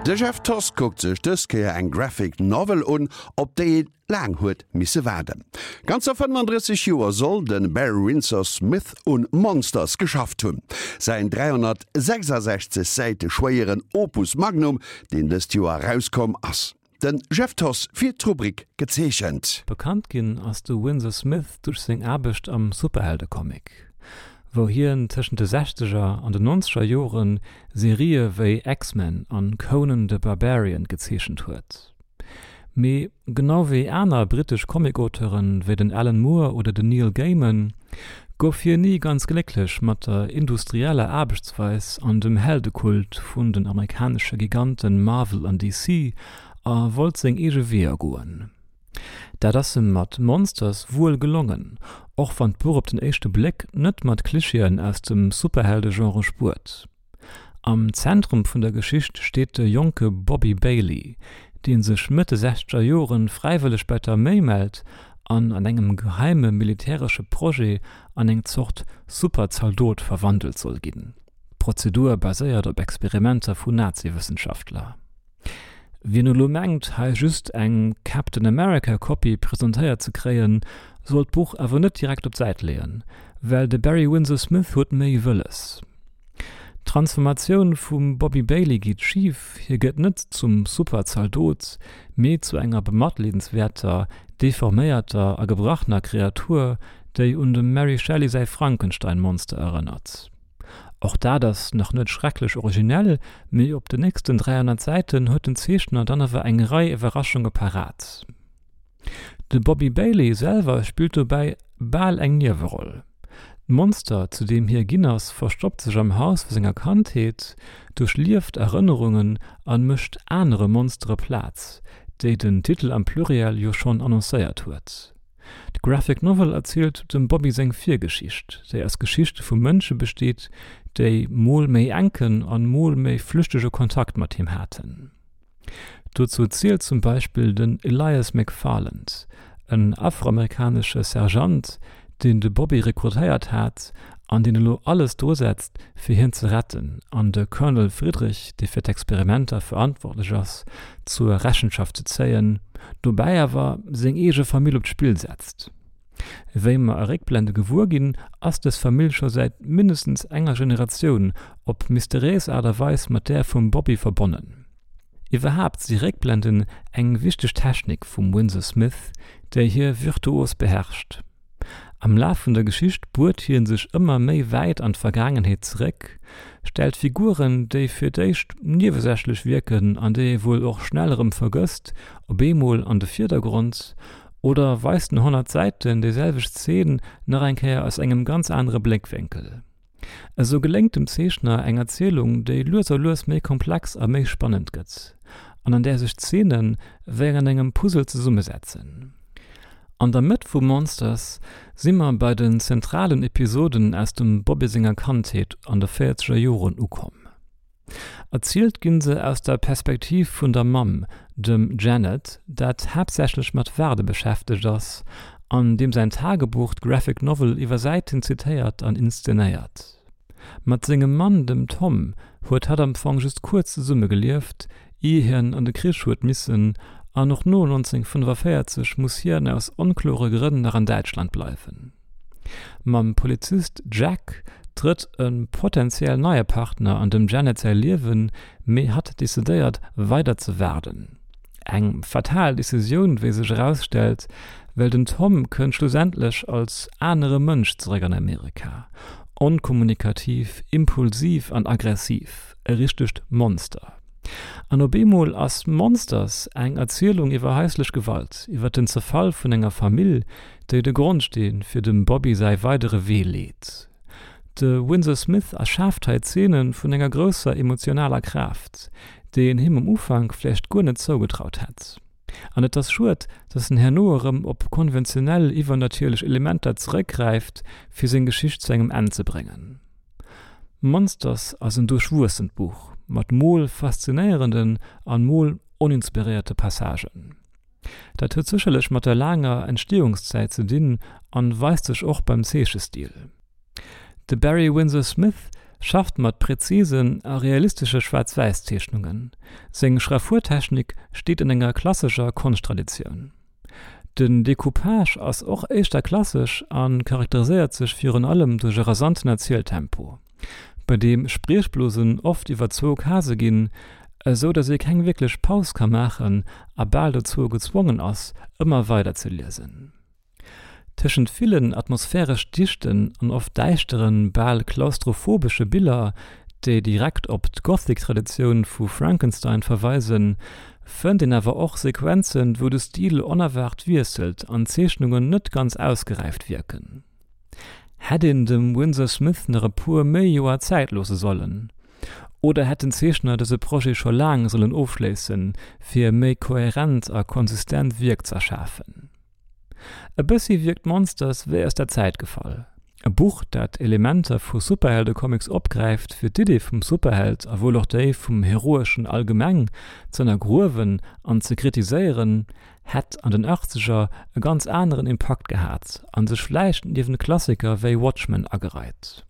De Jeff Thoss kuckt sech dës Kéier eng Graphic Novel un, op déi ee laang huet misse waarden. Ganzer 35 Joer soll de Barry Windsor Smith un Monsters geschafft hunn. Säin 366 Säite schwéieren Opus Magnum, deen dëst Joer erauskomm ass. De Jeff Thoss fir d'Rubrik Gezeechent. Bekannt ginn ass de Windsor Smith duerch seng Aarbecht am Superheldecomic, wou hien tëschent de Sechzeger an den Nonzeger Jore Serië wéi X-Men an Conan the Barbarian gezeechent huet. Mee genau wéi aner brittesch Comic-Auteuren wéi den Alan Moore oder den Neil Gaiman gouf hien ni ganz glécklech mat der industrieller Aarbechtsweis an dem Heldekult vun den amerikanesche Giganten Marvel an DC a wollt seng eege Weeër goen. Dat ass em mat Monsters wuel gelongen, och wann d'Buch op den éischte Bléck net mat Klischeeën aus dem Superheldegenre spuert. Am Zentrum vun der Geschicht steet de jonke Bobby Bailey, dee sech Mëtt de sechzeger Joren fräiwëlleg bei d'Arméi mellt an an engem geheime militäresche Projet an eng Zort Super-Zaldot verwandelt soll ginn. D'Prozedur baséiert op Experimenter vu Nazi-Wëssenschaftler. Wien elo mengt, hei just eng Captain America Kopie presentéiert ze kréien, soll d'Buch awer net direkt op d'Säit leeën, well de Barry Windsor Smith huet méi wëlles. D'Transformatioun vum Bobby Bailey geet schif, hie gëtt net zum Super-Zaldot, mee zu enger bematleedenswäerter, deforméierter a gebrachner Kreatur, déi un dem Mary Shelley säi Frankenstein-Monster erënnert. Och dat ass nach net schrecklech originell, mee op den nächsten 300 Säiten huet den Zeechner dann awer eng Rei Iwwerraschunge parat. De Bobby Bailey selwer spillt dobäi bal eng Nieweroll. D'Monster, zu deem hie ginn ass, verstoppt sech am Haus vu senger Kandheet, duerchlieft Erënnerungen an mécht anere Monstere Plaz, déi den Titel am Pluriel jo schonn annoncéiert huet. D'Graphic Novel erzielt dem Bobby seng Virgeschicht, déi aus Geschichte vu Mënsche besteet, déi mol méi enken an mol méi flüchtege Kontakt mat him haten. Dozou zielt zum Beispill den Elias McFarland, en afroamerikanesche Sergeant, deen de Bobby rekrutéiert hat an deen elo alles drusetzt, fir hien ze retten an de Colonel Friedrich, dee fir d'Experimenter verantwortlech ass, zur Rechenschaft ze zéien, dobäi awer seng eege Famill op d'Spill setzt. Wéi mer a Réckblende gewuer ginn, ass dës Famill scho säit mindestens enger Generatioun op mysteriéis Aart a Weis mat där vum Bobby verbonnen. Iwwerhaapt si Réckblenden eng wichteg Technik vum Winsor Smith, déi hie virtuos beherrscht. Am Laf vun der Geschicht buert hie sech ëmmer méi wäit an d'Vergaangenheet zeréck, stellt Figuren, déi fir d'éischt niewesächlech wierken an déi ee wuel och schnell erëm vergësst, op eemol an de Virdergrond oder weist no 100 Säiten déi selwecht Zeen nach eng Kéier aus engem ganz anere Bléckwénkel. Esou geléngt dem Zeechner eng Erzielung, déi lues a lues méi komplex a méi spannend gëtt, an an där sech d'Zeene wéi an engem Puzzle zesummesetzen. An der Mëtt vu Monsters si mer bei den zentralen Episoden aus dem Bobby senger Kandheet an de véierzeger Joren ukomm. Erzielt ginn se aus der Perspektiv vun der Mamm, dem Janet, dat haaptsächlech mat Waarde beschäftegt ass an deem säin Tagebuch d'Graphic Novel iwwer Säiten zitéiert an inszenéiert. Mat sengem Mann, dem Tom, huet hatt am Fong just kuerz zesumme gelieft, ier hien an de Krich huet missen, an och no 1945 muss hien aus onklore Grënn nach an Däitschland bleiwen. Mam Polizist Jack trëtt e potentiell neie Partner an dem Janet säi Liewen, mee hatt decidéiert, weider ze waarden. Eng fatal Decisioun, wéi sech erausstellt, well den Tom kënnt schlussendlech als anere Mënsch zeréck an Amerika, onkommunikativ, impulsiv an aggressiv, e richtegt Monster. An op eemol ass Monsters eng Erzielung iwwer haislech Gewalt, iwwer den Zerfall vun enger Famill, déi de Grondsteen fir dem Bobby säi weidere Wee leet. De Winsor Smith erschaaft hei Zeene vun enger grousser emotionaler Kraaft, déi een him um Ufank vläicht guer net zougetraut hätt. An et ass schued, datt en herno erëm op konventionell iwwernatierlech Elementer zeréckgräift, fir seng Geschicht zu engem Enn ze bréngen. Monsters ass en duerchwuessent Buch, mat mol faszinéierenden an mol oninspiréierte Passagen. Dat huet sécherlech mat der laanger Entstehungszäit ze dinn an weist sech och beim Zeechestil. De Barry Windsor Smith. schafft mat präzisen a realistesche Schwaarz-Wäiss-Zeechnungen. Seng Schraffurtechnik steet an enger klassescher Konschttraditioun. Den Decoupage ass och éischter klassesch a charakteriséiert sech virun allem duerch e rasanten Erzieltempo, bei deem Spriechblosen oft iwwer zwou Case ginn, esou datt ee keng wierklech Paus ka maachen a bal dozou gezwongen ass, ëmmer weider ze liesen. Tëschent villen atmosphäresch dichten an oft däischteren, bal klaustrophobesche Biller, déi direkt op d'Gothic-Traditioun vu Frankenstein verweisen, fënnt een awer och Sequenzen, wou de Stil onerwaart wiesselt an d'Zeechnungen net ganz ausgeräift wierken. Hätt een dem Winsor Smith nach e puer méi Joer Zäit loosse sollen? Oder hätt den Zeechner dëse Projet scho laang sollen ofschléissen, fir e méi kohärent a konsistent Wierk z'erschafen? E bëssi wierkt Monsters wéi aus der Zäit gefall. E Buch, dat Elementer vu Superheldecomics opgräift, fir d'Idee vum Superheld a wuel och déi vum Heroeschen allgemeng z'ënnergruewen an ze kritiséieren, hätt an den Achtzeger e ganz aneren Impakt gehat a sech vläicht niewent Klassiker wéi Watchmen agereit.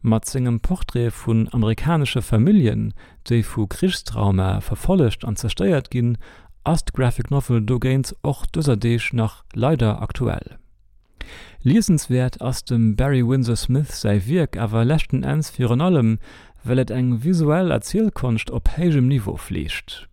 Mat sengem Portrait vun amerikanesche Familljen, déi vu Krichstraumae verfollegt an zerstéiert ginn, ass d'Graphic Novel dogéint och dëser Deeg nach leider aktuell. Liesenswäert ass dem Barry Windsor Smith säi Wierk awer leschten Enns virun allem, well et eng visuell Erzielkonscht op héijem Niveau fleegt,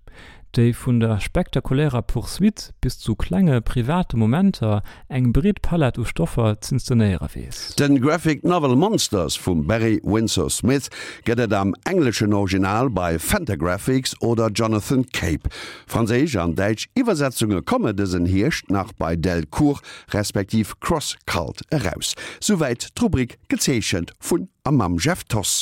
déi vun der spektakulärer Poursuite bis zu klenge private Momenter eng breet Palett u Stoffer z'inszenéiere weess. Den Graphic Novel Monsters vum Barry Windsor Smith gëtt et am engleschen Original bei Fantagraphics oder Jonathan Cape. Franséisch an däitsch Iwwersetzunge komme dësen Hierscht nach bei Delcourt respektiv Cross Cult eraus. Souwäit d'Rubrik Gezeechent vun a mam Jeff Thoss.